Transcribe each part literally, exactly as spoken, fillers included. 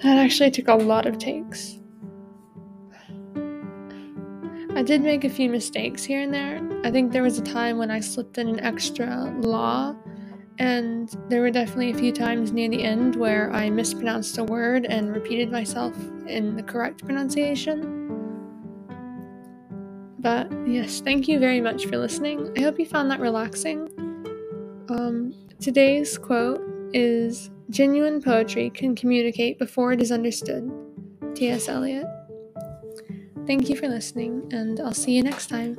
That actually took a lot of takes. I did make a few mistakes here and there. I think there was a time when I slipped in an extra la, and there were definitely a few times near the end where I mispronounced a word and repeated myself in the correct pronunciation. But yes, thank you very much for listening. I hope you found that relaxing. Um, today's quote is, "Genuine poetry can communicate before it is understood." T S. Eliot. Thank you for listening, and I'll see you next time.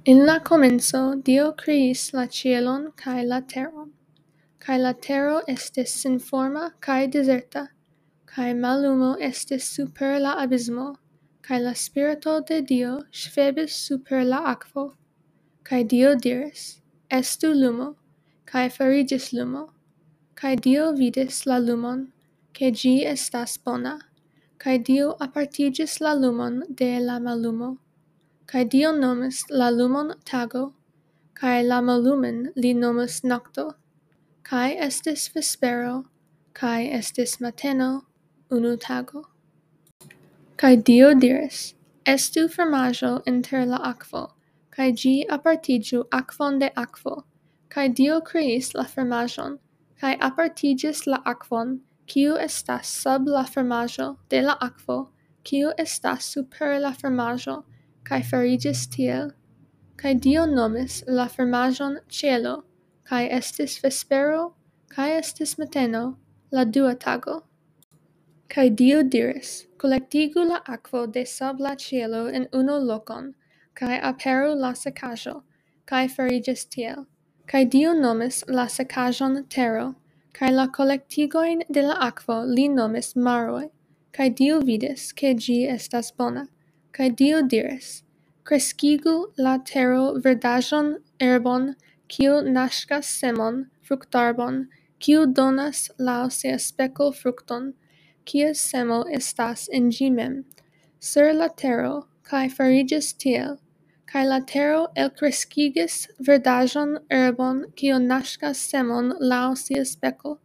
En la komenco Dio kreis la ĉielon kaj la teron, kaj la tero estis senforma kaj dezerta, kaj mallumo estis super la abismo, kaj la Spirito de Dio ŝvebis super la akvo. Kaj Dio diris: "Estu lumo," kaj fariĝis lumo. Kaj Dio vidis la lumon, ke ĝi estas bona, kaj Dio apartiĝis la lumon de la mallumo. Kaj Dio nomis la lumon tago, kaj la mallumen li nomis nokto. Kaj estis vespero, kaj estis mateno, unu tago. Kaj Dio diris: "Estu fromaĝo inter la akvo," kaj ĝi apartiĝu akvon de akvo. Kaj Dio kreis la fromaĝon, kaj apartiĝis la akvon, kiu estas sub la fromaĝo, de la akvo, kiu estas super la fromaĝo, kaj fariĝis tiel. Kaj Dio nomis la fromaĝon ĉielo, kaj estis vespero, kaj estis mateno, la dua tago. Kaj Dio diris: "Kolektigu la akvo de sub la ĉielo en unu lokon, kaj aperu la sekaĵo," kaj fariĝis tiel. Kaj Dio nomis la sekaĵon tero, kaj la kolektigojn de la akvo li nomis maroj. Kaj Dio vidis, ke ĝi estas bona. Kaj Dio diris: "Kreskigu la tero verdaĵon, erbon, kiu naŝkas semon, fruktarbon, kiu donas laŭ sia speko frukton, kies semo estas en ĝi mem, sur la tero," kaj fariĝis tiel. Kaj la tero elkreskigis verdaĵon, erbon, kiu naŝkas semon laŭ sia speko,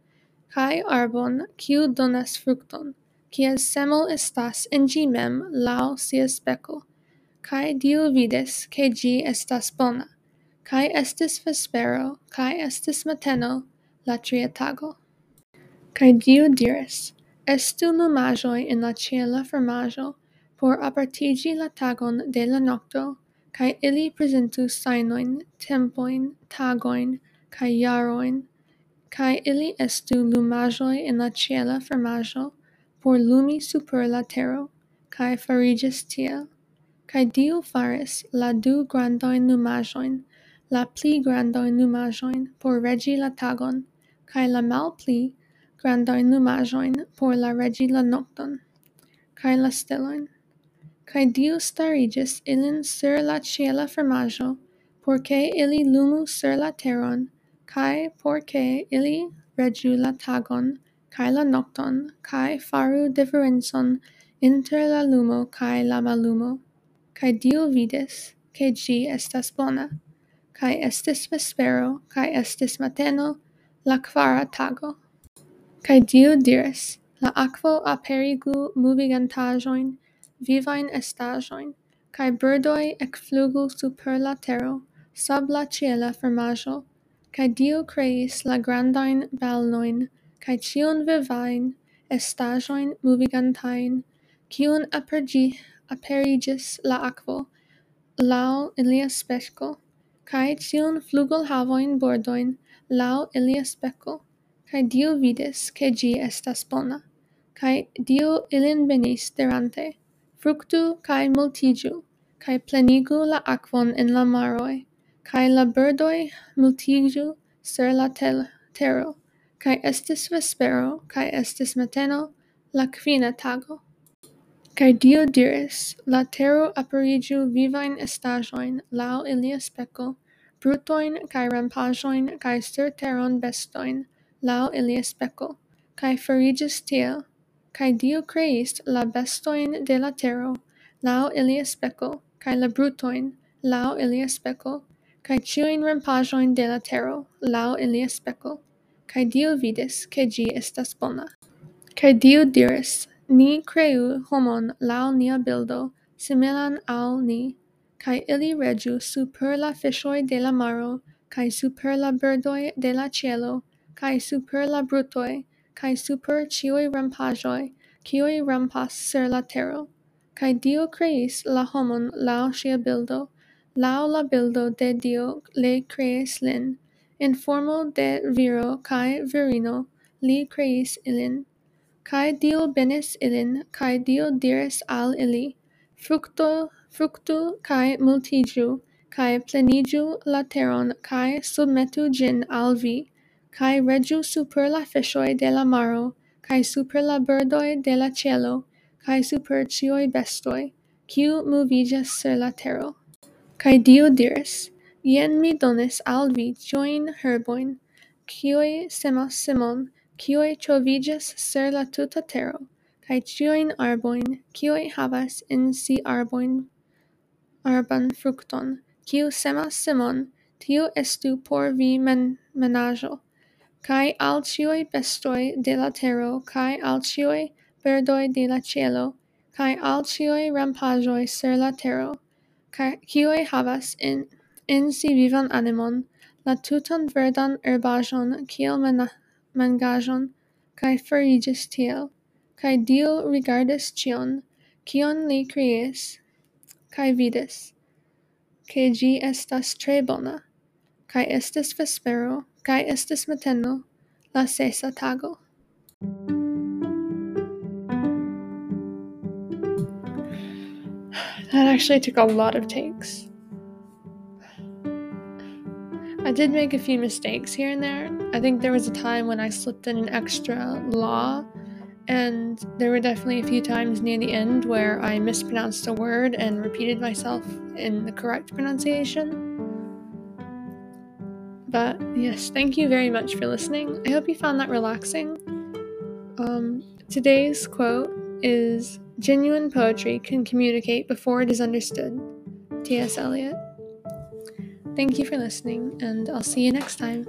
kaj arbon, kiu donas frukton, kies semo estas en ĝi mem laŭ sia speko. Kaj Dio vidis, ke ĝi estas bona. Kaj estis vespero, kaj estis mateno, la tria tago. Kaj Dio diris: "Estu lumaĵoj en la ĉiela fromaĵo, por apartiĝi la tagon de la nokto, kaj ili prezentu sajnojn, tempojn, tagojn, kaj jarojn, kaj ili estu lumaĵoj en la ĉiela fromaĵo, por lumi super la tero." Kaj fariĝis tiel. Kaj Dio faris la du grandajn lumaĵojn, la pli grandajn lumaĵojn por reĝi la tagon, kaj la malpli grandajn lumaĵojn por la reĝi la nokton, kaj la stelojn. Kaj Dio stariĝis ilin sur la ĉiela fromaĵo, por ke ili lumu sur la teron, kaj por ke ili reĝu la tagon, kaj la nokton, kaj faru diferencon inter la lumo kaj la mallumo. Kaj Dio vidis, ke ĝi estas bona. Kaj estis vespero, kaj estis mateno, la kvara tago. Kaj Dio diris: "La akvo aperigu movigantaĵojn, vivajn estaĵojn, kaj birdoj ekflugu super la tero, sub la ĉiela fromaĵo." Kaj Dio kreis la grandajn balnojn, kaj ĉiun vivajn estaĵojn movigantajn, kiun aperĝi-, aperiĝis la akvo, laŭ ilia speko, kaj ĉiun flugolhavojn bordojn laŭ ilia speko. Kaj Dio vidis, ke ĝi estas bona. Kaj Dio ilin benis, dirante: "Fruktu kaj multiĝu, kaj plenigu la akvon en la maroj, kaj la birdoj multiĝu sur la tel-, tero." Kaj estis vespero, kaj estis mateno, la kvina tago. Kaj Dio diris: "La tero aperiĝu vivajn estaĵojn laŭ ilia speko, brutojn kaj rampaĵojn kaj surteron bestojn laŭ ilia speko." Kaj fariĝis tiel. Kaj Dio kreis la bestojn de la tero laŭ ilia speko, kaj la brutojn laŭ ilia speko, kaj ĉiujn rampaĵojn de la tero laŭ ilia speko. Kaj Dio vidis, ke ĝi estas bona. Kaj Dio diris: Ni kreu homon laŭ nia bildo, similan al ni, kaj ili reĝu super la fiŝoj de la maro, kaj super la birdoj de la ĉielo, kaj super la brutoj, kaj super ĉiuj rampaĵoj, kiuj rampas sur la tero. Kaj Dio kreis la homon laŭ ŝia bildo, laŭ la bildo de Dio li kreis lin, en formo de viro kaj virino li kreis ilin. Kaj Dio benis ilin, kaj Dio diris al ili: Frukto, fruktu kaj multiĝu, kaj pleniĝu la teron, kaj submetu ĝin al vi, kaj reĝu super la fiŝoj de la maro, kaj super la birdoj de la ĉielo, kaj super ĉiuj bestoj, kiu moviĝas sur la tero. Kaj Dio diris: Jen mi donis al vi ĉiujn herbojn, kiuj semas semon, kiuj ŝoviĝas sur la tuta tero, kaj ĉiujn arbojn, kiuj havas en si arbojn, arban frukton, kiu semas semon, tiu estu por vi men-, menaĵo. Kaj al ĉiuj bestoj de la tero, kaj al ĉiuj birdoj de la ĉielo, kaj al ĉiuj rampaĵoj sur la tero, kaj kiuj havas en, en si vivan animon, la tutan verdan herbaĵon kiel mena-, mangaĵon, kaj fariĝis tiel. Kaj Dio rigardis ĉion, kion li kreis, kaj vidis, ke ĝi estas tre bona. Kaj estis vespero, kaj estis mateno, la sesa tago. That actually took a lot of takes. I did make a few mistakes here and there. I think there was a time when I slipped in an extra la, and there were definitely a few times near the end where I mispronounced a word and repeated myself in the correct pronunciation. But yes, thank you very much for listening. I hope you found that relaxing. Um, today's quote is: Genuine poetry can communicate before it is understood. T S Eliot. Thank you for listening, and I'll see you next time.